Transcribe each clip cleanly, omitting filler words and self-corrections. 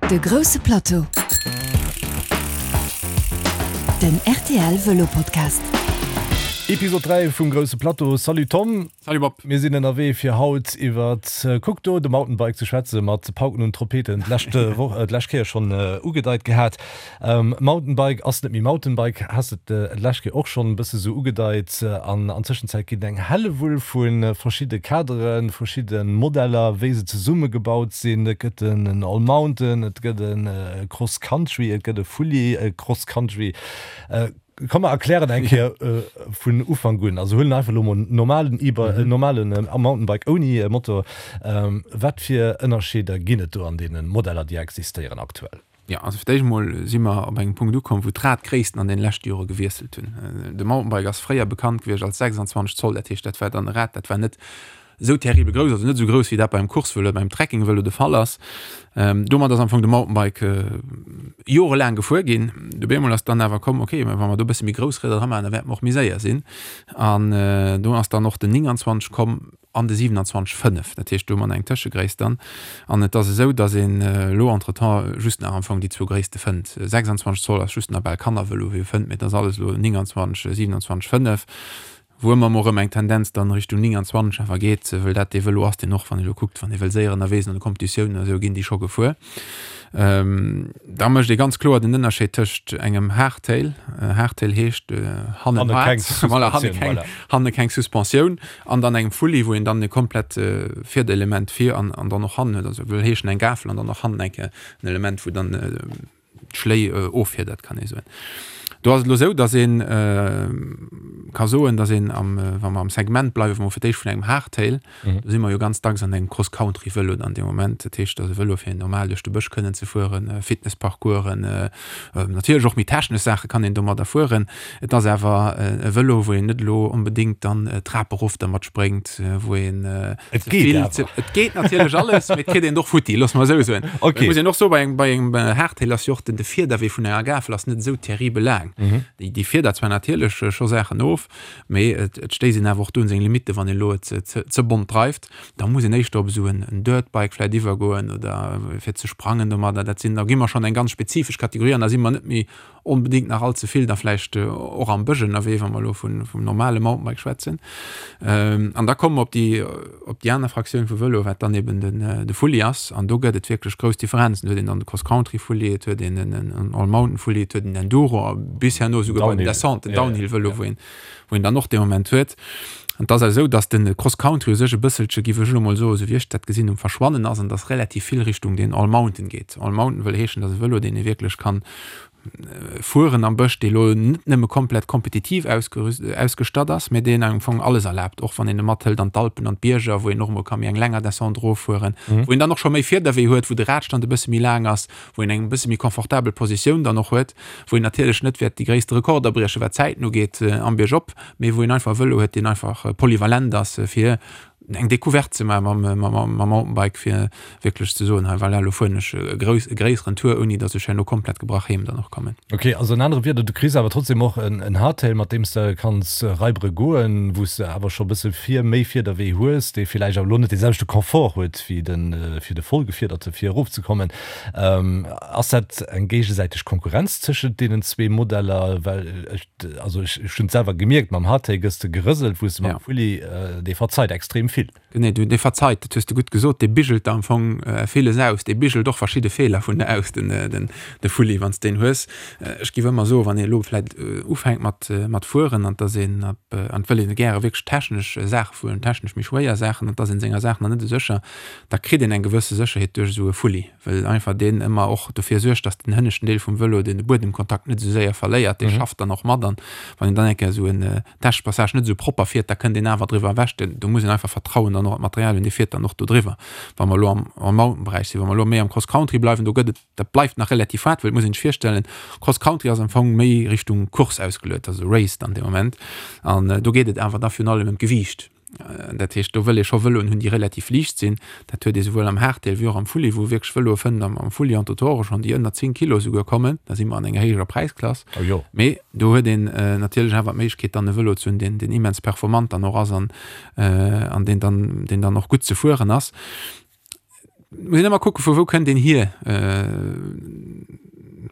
De grousse Plateau, den rtl Vëlo Podcast. Episode 3 vum grousse Plateau. Salut Tom. Salut Bob. Mir sinn ënnerwee fir haut iwwert, kuck do, de Mountainbike ze schwätzen, mat Pauken und Tropeten, d'lescht Woch, d'lescht Kéier schonn ugedeit gehat. Mountainbike ass net méi Mountainbike, has de d'lescht Kéier och schonn e bësse sou ugedeit. An an Tëschenzäit ginn et eng Hellewull vu verschidde Kaderen, verschidde Modeller, wéi se zesummegebaut sinn. Et gëtt en All Mountain, et gëtt e Cross Country, et gëtt e Fully Cross Country. Komm mer erklären eng Kéier vun Ufank un. Also huelen einfach elo mol en normalen E-Bike, en normalen Mountainbike ouni Motor. Wat fir Ënnerscheeder ginn et do an deene Modeller, déi existéieren aktuell? Jo, also fir d'éischt emol si mer op engem Punkt ukomm, wou d'Radgréissten an deene leschte Jore gewiesselt hunn. De Mountainbike ass fréier bekannt gewiescht als 26 Zoll, dat heescht, dat war dann e Rad, dat war net esou terribel grouss, also net esou grouss wéi dat beim Coursevëlo oder beim Trekkingvëlo de Fall ass. Domat ass am Fong de Mountainbike jorelaang gefuer ginn. Op eemol ass dann awer komm, okay, mä wa mer do e bësse méi grouss Rieder dra maachen, da wäerte mer och méi séier sinn. An do ass dann och den 29 komm. an de 27, 5, dat heescht do hu mer eng Tëschegréisst dann. An et ass esou, datt een elo entretemps just nach am Fong déi zwou Gréisste fënnt. 26 Zoll ass just nach bal Kannervëlo wéi e fënnt, mee et ass alles elo 29, 27, 5, wou ëmmer emol erëm eng Tendenz dann Richtung 29 awer geet, wëll dat dee Vëlo ass, deen och, wann ee elo kuckt, wann ee wëll séier ënnerwee sinn an de Competitiounen oder esou, ginn déi scho gefuer. Da mécht ee ganz kloer den Ënnerscheed tëscht engem Hardtail, Hardtail heescht hannen haart, voilà, hanne keng, hanne keng Suspensioun, an dann engem Fully, wou een dann e komplett Fiederelement vir an dann och hannen huet, also wëll heeschen eng Gafel an dann och hannen eng en Element, wou dann d'Schléi offiedert, kann ee soen. Do ass et elo esou, datt ee ka soen, datt een am, wa mer am Segment bleiwen, wa mer fir d'éischt vun engem Hardtail, do si mer jo ganz dacks an engem Cross-Country-Vëlo dann dee Moment, dat heescht, dat ass e Vëlo fir normal duerch de Bësch kënnen ze fueren, Fitnessparcoursen, natierlech och méi technesch Saache kann een domadder fueren. Et ass awer e Vëlo, wou een net elo onbedéngt dann d'Trap erof dermat spréngt, wou een Et geet awer. Et geet natierlech alles, mee et kritt een et och futti, loosse mer esou soen. Ok. Et muss een och soen, bei engem, bei engem Hardtail ass jo och den, de Fiederwee vun enger Gafel ass net esou terribel laang. Déi, déi fiedert zwar natierlech scho Saachen of, mee et, et stéisst een awer och do un seng Limitte, wann een elo et ze, ze, ze bont dreift. Da muss een éischter op esou en, en Dirtbike vläicht iwwergoen oder fir ze sprangen domadder. Dat sinn, da gi mer schonn eng ganz spezifesch Kategorie an da si mer net méi onbedéngt nach all ze vill da vläicht och am Bësch ënnerwee, wa mer elo vun, vum normale Mountainbike schwätzen. An da komme mer op déi, op déi aner Fraktioun vu Vëlo, wat dann eben den, de Fully ass. An do gëtt et wierklech grouss Differenzen. Do huet een dann de Cross-Country-Fully, et huet een en All-Mountain-Fully, et huet een Enduro a bis herno esouguer bei den Descente, den Downhill-Vëlo, wou een, wou een dann och dee Moment huet. An et ass esou, datt de Cross-Country u sech e bësselche, géif ech elo mol soen, esou wéi ech dat gesinn, um Verschwannen ass an datt relativ vill Richtung deen All-Mountain geet. All-Mountain wëll heeschen, datt e Vëlo, deen ee wierklech kann fueren am Bësch, dee lo net nëmme komplett kompetitiv ausgestatt ass, mä deen am Fong alles erlaabt, och wann een e mathëlt an d'Alpen, an d'Bierger, wou een och emol ka méi eng länger Descente eroffueren, wou een dann och scho méi Fiederwee huet, wou de Radstand e bësse méi laang ass, wou een eng bësse méi confortabel Positioun dann och huet, wou een natierlech net wäert déi gréisste Rekorder brieche wat d'Zäiten ugeet am Biergop, mee wou een einfach e Vëlo huet, deen einfach polyvalent ass fir eng Découverte ze maache mam mam Mountainbike, fir wierklech ze soen, hei voilà, elo fueren ech e grouss e gréisseren Tour, ouni datt ech herno komplett gebrach heem dann och kommen. Ok, also an anere Wierder, du kriss awer trotzdem och en Hardtail, mat deem s de kanns raibere goen, wou s de awer scho e bësse vir méi Fiederwee hues, dee villäicht awer elo net dee selwechte Confort huet wéi de fir de vollgefiederte fir erofzekommen. Ass dat eng géigesäiteg Konkurrenz tëschent deenen zwee Modeller? Well ech, also ech hunn et selwer gemierkt, mam Hardtail gëss de gerëselt, wou s de mam Fully, dee verzeit extrem vill. Genee, du, dee verzeit, dat hues de gutt gesot, dee bigelt der am Fong villes aus, dee bigelt och verschidde Feeler vun der aus, den, den, de Fully, wann s de deen hues. Ech géif ëmmer soen, wann ee elo vläicht ufänkt mat, mat fueren an dass een op, an et wëll een gäre wierklech technesch Saache fueren, technesch méi schwéier Saachen, an dass een senger Saach nach net esou sécher, da kritt een eng gewësse Sécherheet duerch esou e Fully, well einfach deen ëmmer och dofir suergt, dass den hënneschten Deel vum Vëlo den Buedemkontakt net esou séier verléiert, dee schafft dann och mat an wann een dann eng Kéier esou en Testpassage net esou propper fiert, da kënnt een awer driwwer ewech. Do muss een einfach Vertrauen dann och an d'Material hunn, dee fiert dann och do driwwer. Wa mer elo am am Mountainberäich sinn, wa mer elo méi am Cross-Country bleiwen, do gëtt et, dat bleift nach relativ haart, well et muss een sech virstellen, Cross-Country ass am Fong méi Richtung Course ausgeluet, also Race dann dee Moment an do geet et awer da virun allem ëm d'Gewiicht. Dat heescht, do wëll ee scho Vëloen hunn, déi relativ liicht sinn. Dat huet ee souwuel am Hardtail wéi och am Fully, wou wierklech Vëloe fënnt, am Fully an Totore schonn, déi ënner 10 Kilo esouguer kommen. Da si mer an enger héijer Präisklass. Oh jo. Mee do huet een natierlech awer d'Méiglechkeet, dann e Vëlo ze hunn, deen, deen immens performant dann och ass an, an deen dann, deen dann och gutt ze fueren ass. Muss een ëmmer kucken, vu wou kënnt een hier.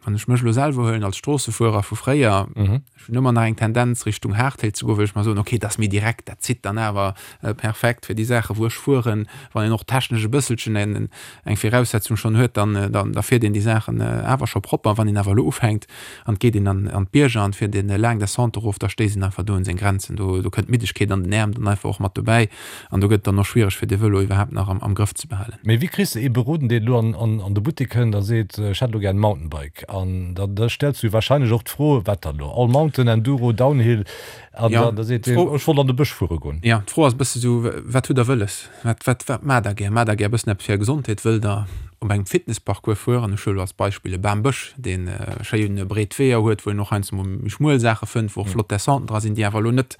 Wann ech mech elo selwer huelen als Stroossefuerer vu fréier, ech hunn ëmmer nach eng Tendenz Richtung Hardtail ze goen, well ech mer soen, okay, dat ass méi direkt, dat zitt dann awer perfekt fir déi Saache wou ech fueren. Wann een och technesch e bësselchen eng Viraussetzung schonn huet, dann da fiert een déi Saachen awer scho propper. Wann een awer elo ufänkt an et geet een an d'Bierger an et fiert een laang Descente erof, da stéisst een einfach do un seng Grenzen. Do kënnt d'Middegkeet an den Äerm dann einfach och mat dobäi. An do gëtt et dann och schwiereg fir de Vëlo iwwerhaapt nach am Grëff ze behalen. Mee wéi kriss de ee beroden, deen elo an de Buttek kënnt a seet, ech hätt elo gär en Mountainbike? An da stells du wahrscheinlech och d'Fro, wat dann elo? All Mountain, Enduro, Downhill? An da seet deen, ech wollt an de Bësch fuere goen. Jo, d'Fro ass e bësse sou, wat hutt der wëlles? Wat, wat, wat maacht der gär? Maacht der gär e bëssen eppes fir är Gesondheet? Wëllt der op engem Fitnessparcours fueren? Ech huele elo als Beispill e Bambësch, dee schéi breet Weeër huet, wou een och heiansdo mol méi schmuel Saache fënnt, wou och flott Descenten dra sinn, déi awer elo net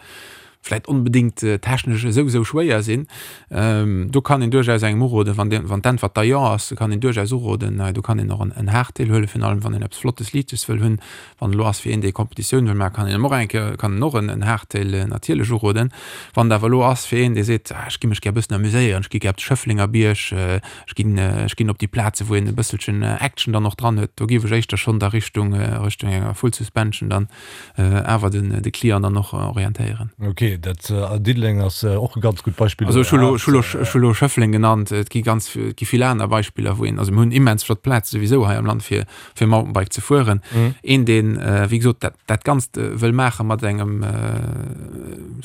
vläit onbedéngt technesch esou esou schwéier sinn. Do kann een duerchaus engem uroden, wann wann d'Äntwert da jo ass, kann een duerchaus uroden, do kann een och en Hardtail huelen, virun allem wann een eppes Flottes Liichtes wëll hunn. Wann elo ass fir een dee Competitioun wëll maachen, kann een em och eng Kéier, kann en och en Hardtail natierlech uroden. Wann et awer elo ass fir een dee seet, ah ech gi mech gär e bëssen amuséieren, ech gi gär op de Schëfflenger Bierg, ech ginn ech ginn op déi Plaze wou een e bësselchen Action dann och dran huet, do géif ech éischter schonn da Richtung Richtung enger Full Suspension dann awer den de Client dann och orientéieren. Ok, dat Diddeleng ass och e ganz gutt Beispill. Also ech hu lo, ech hu lo, ech hu lo Schëffleng genannt, et gi ganz, et gi vill aner Beispiller, wou een, also mir hunn immens flott Plaze souwisou hei am Land fir fir Mountainbike ze fueren. Een deen wéi gesot dat dat Ganzt wëll maache mat engem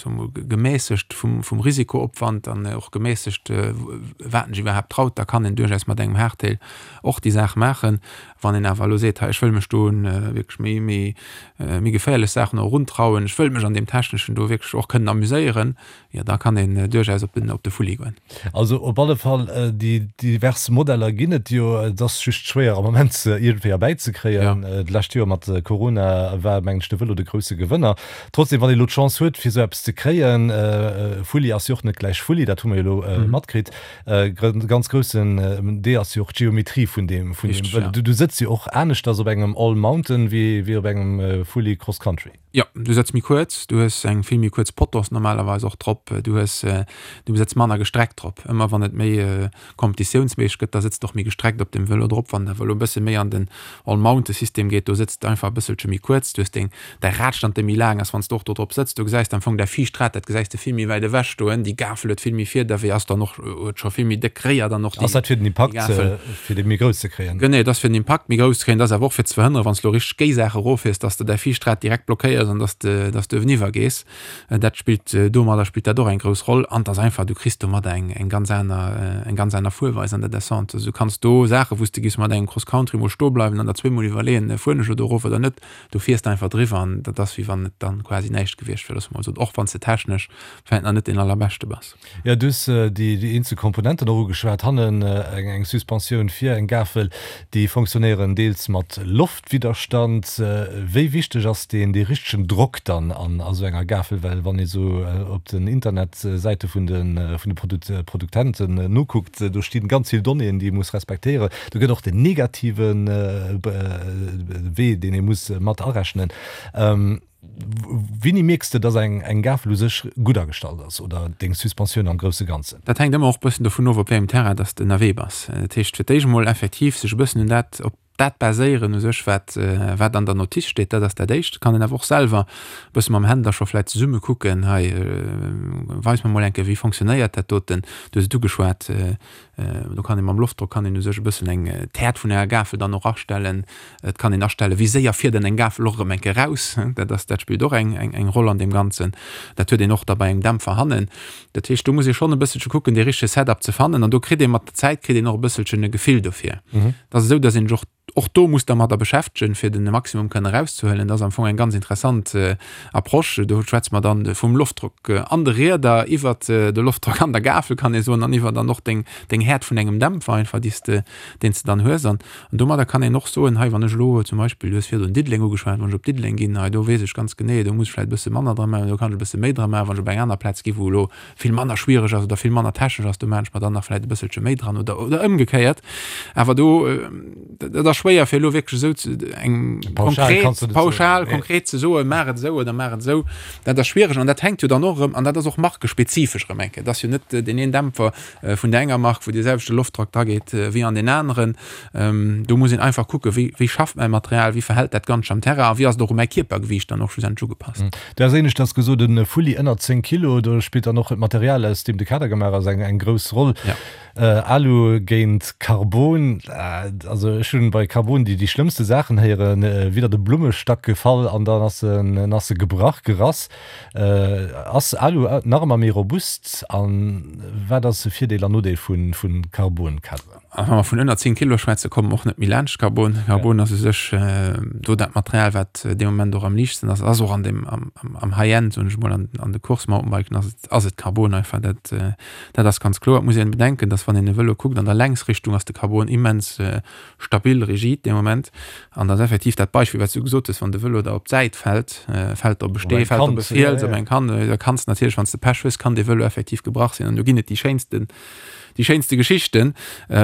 soe mol gemässegt vum vum Risikoopwand an och gemässegt wat en sech iwwerhaapt traut, da kann en duerchaus mat engem Hardtail och déi Saach maachen. Wann een awer elo seet, hei ech wëll mech do un wierklech méi, méi, méi geféierlech Saachen och eruntrauen, ech wëll mech an deem Techneschen do wierklech och kënnen amuséieren, jo da kann een duerchaus op den, op de Fully goen. Also op alle Fall, déi divers Modeller ginn et jo. Et ass just schwéier am Moment se iergendwéi erbäizekréien. D'lescht Joer mat Corona war mengen ech de Vëlo de grousse Gewënner. Trotzdem, wann ee elo d'Chance huet fir esou eppes ze kréien, Fully ass jo och net gläich Fully, dat hu mer jo elo matkritt, Ganz groussen Deel ass jo och d'Geometrie vun deem Vëlo. Du sëtz jo och aneschters op engem All Mountain wéi op engem Fully Cross Country. Jo, du sëtz méi kuerz, du hues eng vill méi kuerz Pottos normalerweis och drop, du hues, du sëtz manner gestreckt drop. Ëmmer wann et méi kompetitiounsméisseg gëtt, da sëtz de och méi gestreckt op dem Vëlo drop. Wann et awer elo e bësse méi an den All Mountain System geet, do sëtz de einfach e bësselche méi kuerz, du hues deng Däi Radstand dee méi laang ass, wann s de och do drop sëtz, do gesäis de am Fong däi viischt Rad, dat gesäis de vill méi wäit ewech stoen. Déi Gafel huet vill méi Fiederwee, ass dann och, huet scho vill méi déck Réier dann och déi Ass dat fir den Impakt, Gafel. fir dee méi grouss ze kréien? Genee, et ass fir den Impakt méi grouss ze kréien, et ass awer och fir ze verhënneren, wann s de elo richteg géi Saache eroffiers, dass de däi viischt Rad direkt blockéiers an dass de, dass de ueweniwwer gees. Dat spillt, domadder spillt dat och eng grouss Roll an et ass einfach, du kriss domadder eng, eng ganz aner, eng ganz aner Fuerweis an der Descente. Also du kanns do Saache wou s de giffs mat engem Cross Country mol stoe bleiwen an der zweemol iwwerleeën, fueren ech elo do erof oder net, Du fiers einfach driwwer an dat ass wéi wann et dann quasi näischt gewiescht wier, loosse mer mol soen, och wann s de technesch vläit nach net deen allerbeschte bass. Jo, du hues déi eenzel Komponenten och ugeschwat, hannen eng Suspensioun, vir eng Gafel, déi fonctionnéieren deels mat Loftwidderstand. Wéi wichteg ass deen dee richtegen Drock dann an esou enger Gafel? Well wann ee sou op den Internetsäite vun de Produktenten nokuckt, do stinn ganz vill Donnéeën, déi ee muss respektéieren. Do gëtt och den negative Wee, deen ee muss mat arechnen. Wéini mierks de, dass eng Gafel u sech gutt agestallt ass oder deng Suspensioun am grousse Ganzen? Dat hänkt ëmmer och e bëssen dovun of, op wéi engem Terrain dass de ënnerwee bass. Dat heescht, fir d'éischt emol effektiv sech e bëssen un dat, op dat baséieren u sech, wat, wat an der Notice steet, dat ass dat Éischt. Kann een awer och selwer e bësse mam Händler scho vläicht zesumme kucken, hei, weis mer mol eng Kéier, wéi fonctionnéiert dat doten? Du hues et ugeschwat, Do kann ee mam Loftdrock kann een u sech e bëssen eng d'Häert vun enger Gafel dann och astellen. Et kann een astellen, wéi séier fiert dann eng Gafel och erëm eng Kéier raus. Dat ass, dat spillt och eng eng eng Roll an deem Ganzen. Dat huet een och da bei engem Dämpfer hannen. Dat heescht, do muss ee schonn e bësselche kucken, dee richtege Setup ze fannen. An do kritt ee mat der Zäit kritt een och e bësselchen e Gefill dofir. Et ass esou, datt een sech och och do muss dermadder beschäftegen, fir den Maximum kënnen erauszehuelen. Dat ass am Fong eng ganz interessant Approche. Do schwätze mer dann vum Loftdrock an de Rieder, iwwert de Loftdrock an der Gafel, kann ee soen, an iwwer dann och deng, deng Häert vun engem Dämpfer einfach, déi s de, deen s de dann hues. An domadder kann een och soen, hei, wann ech elo zum Beispill, du hues virdrun Diddeleng ugeschwat, wann ech op Diddeleng ginn, hei do weess ech ganz genee, do muss ech vläicht e bësse manner dra maachen, do kann ech e bësse méi dra maachen. Wann ech op eng aner Plaz gi wou elo vill manner schwiereg ass oder vill manner technesch ass, do maachen ech mer dann nach vläicht e bësselche méi dran oder, oder ëmgekéiert. Awer do. Dat ass schwéier fir elo wierklech esou ze eng konkret, pauschal konkret ze soen, maach et esou oder maach et esou. Dat ass schwiereg an dat hänkt jo dann och erëm, an dat ass och markespezifesch erëm eng Kéier. Et ass jo net deen een Dämpfer vun der enger Mark, wou dee selwechte Loftdrock drageet wéi an deen aneren. Do muss een einfach kucken, wéi, wéi schafft mäi Material, wéi verhält dat Ganzt sech am Terrain a wéi ass et och u mäi Kierpergewiicht dann och schlussendlech ugepasst. Du has éineschters gesot, e Fulli ënner 10 Kilo, do spillt dann och d'Material, aus deem de Kader gemaach ass, eng grouss Roll. Alu géint Carbon, also ech hunn bei Carbon déi déi schlëmmste Saachen héieren, widder de Blummestack gefall an dann ass en ass e gebrach, gerass. Ass Alu nach ëmmer méi robust an wat ass e Virdeel an Nodeel vu Carbon-Kaderen? A wa mer vun ënner 10 Kilo schwätzen, komme mer och net méi laanscht Carbon. Carbon ass u sech do dat Material, wat dee Moment och am liichtsten ass, ass och an dem am High-End, soen ech emol, an de Course-Mountainbiken ass et ass et Carbon einfach. Dat dat ass ganz kloer. Et muss een bedenken, dass wann een e Vëlo kuckt, an der Längsrichtung ass de Carbon immens stabil, rigid dee Moment. An dass effektiv dat Beispill, wat s du gesot hues, wann de Vëlo der op d'Säit fält, fält der op e Stee, fält op e Fiels, op eng Kant, da kanns natierlech, wann s de Pech hues, kann dee Vëlo effektiv gebrach sinn. An do ginn et déi schéinsten Déi schéinste Geschichten. Et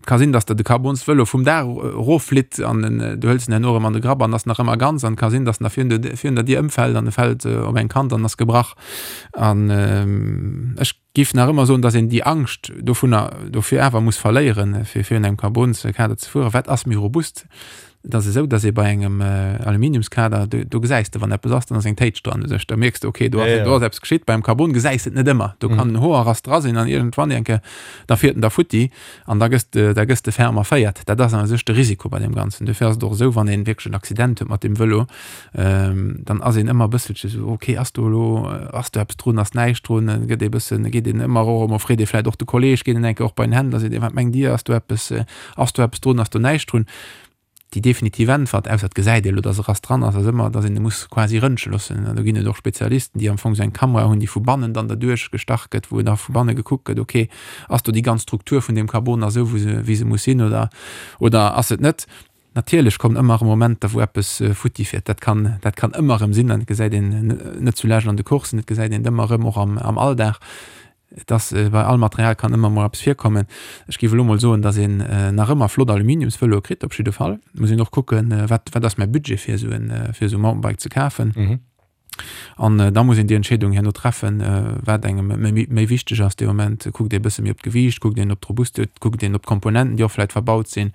ka sinn, datt der de Carbonsvëlo vum Daach erofflitt an du hëls en herno erëm an de Grapp an ass nach ëmmer ganz. An et ka sinn, datt en da virun der virun der Dier ëmfält an e fält op eng Kant an ass gebrach. An ech giff nach ëmmer soen, datt een déi Angscht dovunner dofir awer muss verléieren, fir virun engem Carbonskader ze fueren. Wat ass méi robust? Et ass esou, dass ee bei engem Aluminiumskader, do, do gesäis de, wann eppes ass, dann ass eng Téitsch dran u sech. Da mierks de, okay, do ass, do ass eppes geschitt. Beim Carbon gesäis de et net ëmmer. Do kann en Hoer ass dra sinn an iergendwann eng Kéier, da fiert en der futti an da gëss de, da gëss de ferm erféiert. Dat ass u sech de Risiko bei deem Ganzen. Dofir ass et och esou, wann ee wierklech en Accident huet mat deem Vëlo, dann ass een ëmmer e bësselche esou, okay, ass do elo, ass do eppes drun, ass näischt drun? Da gëtt ee bëssen, geet een ëmmer och erëm, freet ee vläicht och de Kolleeg, geet een eng Kéier och bei den Händler, seet ee, wat mengt Dir, ass do eppes, ass do eppes drun, ass do näischt drun? Déi definitiv Äntwert, ausser et gesäit ee elo, dass e Rast dran ass, ass ëmmer, dass een e muss quasi röntge loossen. An do ginn et och Spezialisten, déi am Fong esou eng Kamera hunn, déi vu bannen dann derduerch gestach gëtt, wou da vu banne gekuckt gëtt, okay, ass do déi ganz Struktur vun deem Carbon nach esou, wou se, wéi se muss sinn, oder, oder ass et net? Natierlech kommen ëmmer erëm Momenter, wou eppes futti fiert. Dat kann, dat kann ëmmer erëm sinn an dat gesäit een net zulescht an de Courssen, dat gesäit een ëmmer erëm och am, am Alldag. Et ass, bei all Material kann ëmmer mol eppes virkommen. Ech géif elo mol soen, datt een nach ëmmer flott Aluminiumsvëloe kritt, op jidde Fall. Muss een och kucken, wat, wat ass mäi Budget fir esou en, fir esou e Mountainbike ze kafen. An da muss een déi Entscheedung herno treffen, wat engem méi, méi wichteg ass dee Moment. Kuckt ee bësse méi op d'Gewiicht, kuckt een op d'Robustheet, kuckt een op d'Komponenten, déi och vläicht verbaut sinn.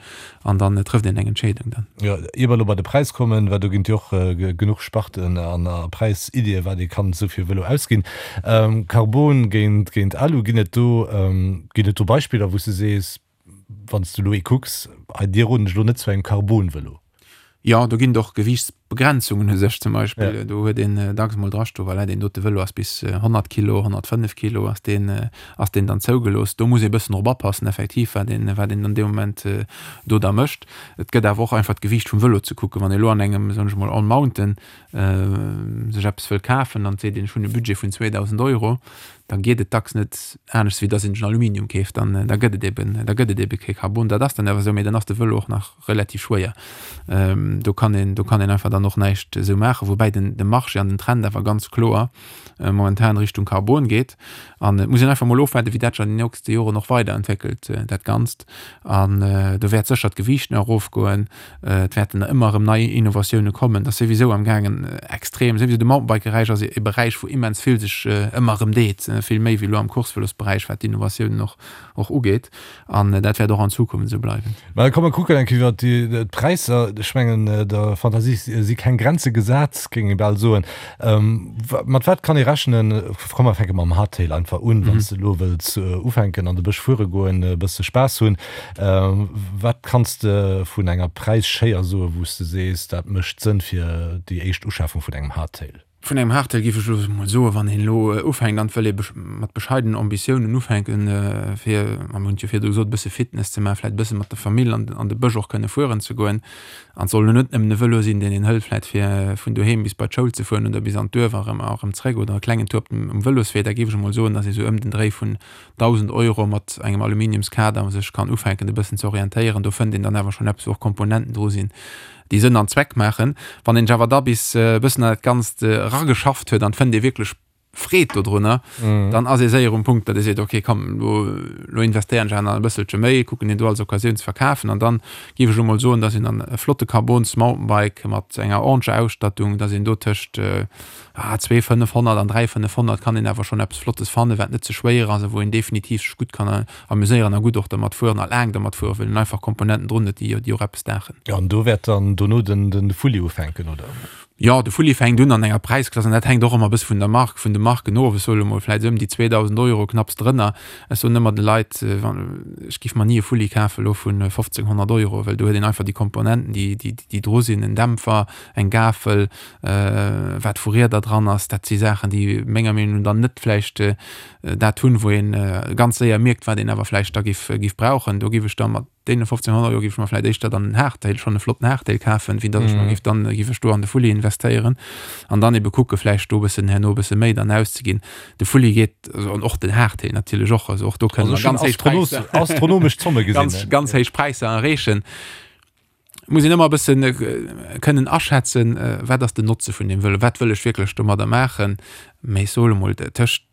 An dann trëfft een eng Entscheedung dann. Jo, ier mer elo bei de Präis kommen, well do ginn et jo och genuch Sparten an a Präisiddie wat ee kann esou fir e Vëlo ausginn. Carbon géint géint Alu, ginn et do ginn et do Beispiller wou s de sees, wann s de elo ee kucks, hei dir roden ech elo net zu engem Carbon-Vëlo? Jo, do ginn et och Gewiichtsbegrenzungen u sech zum Beispill. Do huet een dacks mol drastoen, voilà, deen dote Vëlo ass bis 100 Kilo, 105 Kilo ass deen, ass deen dann zougelooss. Do muss ee bëssen drop oppassen effektiv, wat een, wat een dann dee Moment do da mécht. Et gëtt awer och einfach d'Gewiicht vum Vëlo ze kucken. Wann ee elo an engem, soen ech mol, All-Mountain sech eppes wëll kafen an seet een, ech hunn e Budget vun 2.000 Euro, da geet et dacks net anescht, wéi datt een den Aluminium keeft. Dann, da gëtt et eben, da gëtt et ebe kee Carbon. Dat ass dann awer esou, mee dann ass de Vëlo och nach relativ schwéier. Do kann een, do kann een einfach dann och näischt esou maachen, woubäi den, de Marché an den Trend awer ganz kloer momentan Richtung Carbon geet. An et muss een einfach mol ofwaarden, wéi dat sech an den nächste Joren och weiderentwéckelt, dat Ganzt. An do wäert sécher d'Gewiicht nach erofgoen. Et wäerten ëmmer erëm nei Innovatioune kommen. Et ass souwisou am gaangen extrem, souwisou de Mountainbike-Beräich ass e Beräich, wou immens vill sech ëmmer erëm deet, vill méi wéi elo am Course-Vëlosberäich, wat d'Innovatiounen och, och ugeet. An dat wäert och an Zukunft esou bleiwen. Mä komm mer kucken eng Kéier iwwer d'Präisser. Ech mengen, der Fantasie si keng Grenze gesat, géing ee bal soen. Mat wat kann ee rechnen? Komm mer fänke mam Hardtail einfach un, wann s de elo wëlls ufänken, an de Bësch fuere goen, e bësse Spaass hunn. Wat kanns de vun enger Präisschéier soen, wou s de sees, dat mécht Sënn fir déi éischt Uschafung vun engem Hardtail? Vun engem Hardtail géif ech elo emol soen, wann een elo ufänkt an et wëll ee mat bescheidenen Ambitiounen ufänken, fir, ma mir hunn et jo virdru gesot, e bësse Fitness ze maachen, vläicht e bësse mat der Famill an an de Bësch och kënne fueren ze goen. An et soll elo net nëmmen e Vëlo sinn, deen een hëlt vläicht fir vun doheem bis bei d'Schoul ze fueren oder bis an d'Duerf a rëm a rëm zréck oder e klengen Tour op dem um Vëloswee. Da géif ech emol soen, datt ee sou ëm den Dréi vun 1.000 Euro mat engem Aluminiumskader sech kann ufänken e bëssen ze orientéieren. Do fënnt een dann awer schonn eppes, wou och Komponenten dru sinn, déi Sënn an Zweck maachen. Wann een sech awer da bis e bëssen an dat Ganzt erageschafft huet an et fënnt ee wierklech Freed dodrunner, dann ass ee séier um Punkt, datt ee seet, okay, komm, lo, lo investéieren ech awer nach e bësselche méi, kucken deen do als Occasioun ze verkafen. An dann géif ech elo mol soen, datt een dann e flotte Carbons-Mountainbike mat enger ordentlecher Ausstattung, datt een do tëscht 2.500 an 3.500 kann een awer schonn eppes Flottes fannen, wat net ze schwéier ass a wou een definitiv sech gutt kann amuséieren a gutt och dermat fueren a laang dermat fueren, well een einfach Komponenten drun huet, déi, déi och eppes daachen. Jo, an do wäert dann dono den, den Fulli ufänken, oder? Jo, de Fulli fänkt un an enger Präisklass, an dat hänkt och ëmmer e bësse vun der Mark, vun de Marken of, ech soe lo mol vläicht esou ëm déi 2.000 Euro, knapps drënner. Ech soen ëmmer de Leit, wann, ech giff mer ni e Fulli kafe lo vu 1.500 Euro, well do huet een einfach déi Komponenten, déi, déi, déi dru sinn, en Dämpfer, eng Gafel, wat vu Rieder dran ass, dat si Saachen, déi menger Meenung no dann net vläicht dat hunn, wou een ganz séier mierkt, wat een awer vläicht da giff, giff brauchen. Do giff ech da mat deene 1500 Euro giff ech mer vläicht éischter dann en Hardtail, schonn e flotten Hardtail kafen, wéi datt ech mer giff dann, giff ech do an de Fulli investéieren an dann ebe kucke vläicht do e bëssen herno e bësse méi dann auszeginn. De Fulli geet, also an och den Hardtail natierlech och, also och do kënne mer ganz héich Präisser, astronomesch Zomme gesinn, ganz, ganz héich Präisser erreechen. Muss een ëmmer e bëssen kënnen aschätzen, wat ass den Notze vun deem Vëlo, wat wëll ech wierklech domadder maachen. Mee ech soe mol, tëscht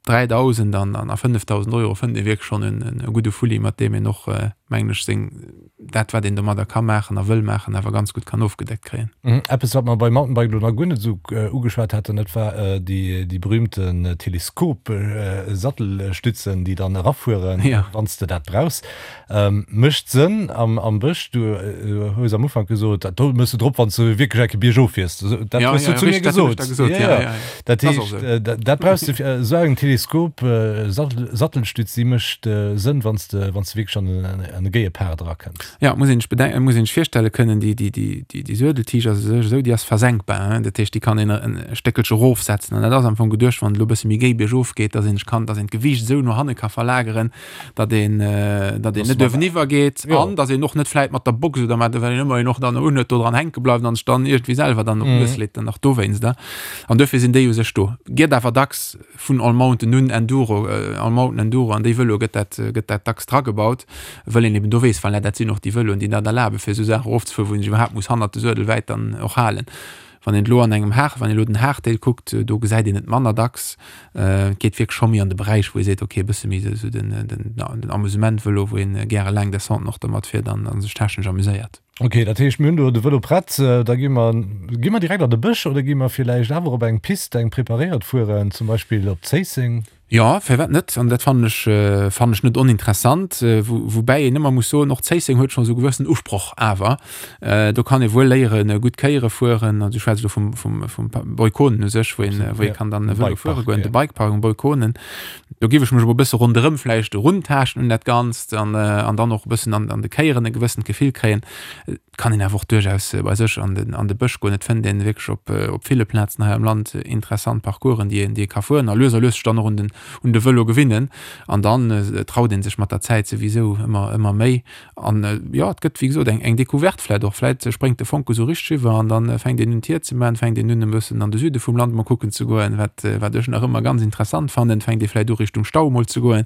3.000 an a 5.000 Euro fënnt ee wierklech schonn en e gudde Fulli, mat deem een och, mengen ech, seng, dat wat een domadder ka maachen a wëll maachen, awer ganz gutt kann ofgedeckt kréien. Eppes wat mer beim Mountainbike elo nach guer net esou ugeschwat haten, dat war déi déi berühmten Teleskop-Sattelstützen, déi dann erafueren, wann s de dat brauchs. Mécht Sënn am Bësch. Du hues am Ufank gesot, dat do mëss de drop, wann s de wierklech enke biergof fiers. Dat hues du zu mir gesot. Dat heescht, dat brauchs de fir esou eng Teleskop-Sattelstütz, déi mécht Sënn, wann s de wann s de wierklech an e géie Paart erakënns. Jo, muss een sech bedenken, muss een sech virstelle kënnen, déi déi déi déi déi Suedeltisch ass esou, déi ass versenkbar, hein. Dat heescht, déi kann een e Stéckelche erofsetzen. An dat ass am Fong geduecht, wann et elo e bësse méi géi biergof geet, dass een sech kann, dass een d'Gewiicht esou no hanne ka verlageren, datt een datt een net ueweniwwer geet an datt een och net vläit mat der Box oder mat wat een ëmmer een och dann unhuet do dran hänke bleift an sech dann iergendwéi selwer dann op d'Nues leet dann nach dowéinst da. An duerfir sinn déi u sech do. Gëtt awer dacks vun All Mountain un Enduro, All Mountain Enduro an déi Vëloe gëtt dat gëtt dat dacks dragebaut, wëll een eben do weess, voilà, dat sinn och déi Vëloen, déi dat erlabe fir esou Saache erofzefueren, wou een sech iwwerhaapt muss hannert de Suedel wäit dann och halen. Wann een elo an engem Haag, wann een elo den Hardtail kuckt, do gesäit een et manner dacks. Et geet wierklech scho méi an de Beräich, wou ee seet, okay, e bësse méi esou den, den, den Amusementvëlo, wou een gäre laang Descenten och dermat fiert an a sech technesch amuséiert. Ok, dat heescht, mir hunn do de Vëlo prett. Da gi mer, gi mer direkt an de Bësch oder gi mer villäicht awer op eng Pist, eng preparéiert fueren, zum Beispill op Zéisseng? Jo, firwat net? An dat fannen ech, fannen ech net oninteressant. Woubäi een ëmmer muss soen, och Zéisseng huet schonn esou gewëssen Usproch awer. Do kann ee wuel léieren, gutt Kéiere fueren. Also ech schwätze elo vum, vum, vum Boykonen u sech, wou een, wou ee kann dann Vëlo fuere goen, de Bikepark um Boykonen. Do géif ech mech awer e bësse ronderëm vläicht eruntaaschten un dat Ganzt an, an dann och e bëssen an, an de Kéieren e gewëssent Gefill kréien. Et kann een awer och duerchaus bei sech an den, an de Bësch goen. Et fënnt een wierklech op, op ville Plazen hei am Land interessant Parcoursen, déi een, déi ee ka fueren a lues a lues sech dann och un den, un de Vëlo gewinnen. An dann traut ee sech mat der Zäit souwisou ëmmer, ëmmer méi. An jo, et gëtt wéi gesot eng, eng Decouverte vläicht och. Vläicht spréngt de Fonke sou richteg iwwer an dann fänkt een un Tier ze maachen, fänkt een un e bëssen an de Süde vum Land mol kucken ze goen, wat, wat ech nach ëmmer ganz interessant fannen. Fänkt ee vläicht u Richtung Stau mol ze goen.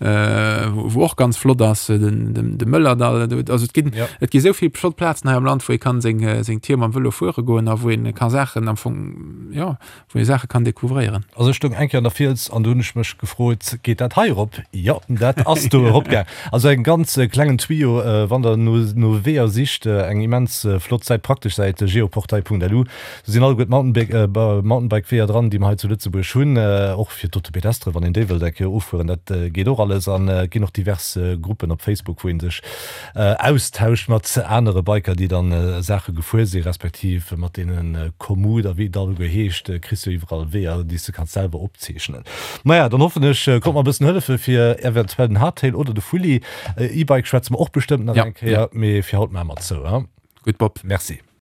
wou och ganz flott ass, den, den, de Mëllerdall. Also et ginn, ja. et gi souvill flott Plazen hei am Land, wou ee kann seng, seng Tier mam Vëlo fuere goen a wou een ka Saachen am Fong, ja, wou ee Saache kann découvréieren. Also ech stoung eng Kéier an der Fiels an do hunn ech mech gefrot, geet dat hei erop? Jo, dat ass do eropgaang. Also en ganz klengen Tuyau, wann der no, no Weeër sicht, eng immens flott Säit, praktesch Säit, geoportail.lu. Do sinn alleguer d'Mountainbike-Weeër dran, déi mer hei zu Lëtzebuerg hunn, och fir d'Autopédestre, wann een déi wëllt eng Kéier offueren, dat geet och alles. An et ginn och divers Gruppen op Facebook, wou ee sech austauscht mat anere Biker, déi dann Saache gefuer sinn, respektiv mat deene Komoot a wéi et alleguer heescht, kriss du iwwerall Weeër, déi s de kanns selwer opzeechnen. Maja, dann hoffen ech, konnt mer e bëssen hëllefe fir eventuell den Hardtail oder de Fully. E-Bike schwätze mer och bestëmmt nach eng Kéier, mee fir haut maache mer zou. Gutt, Bob. Merci.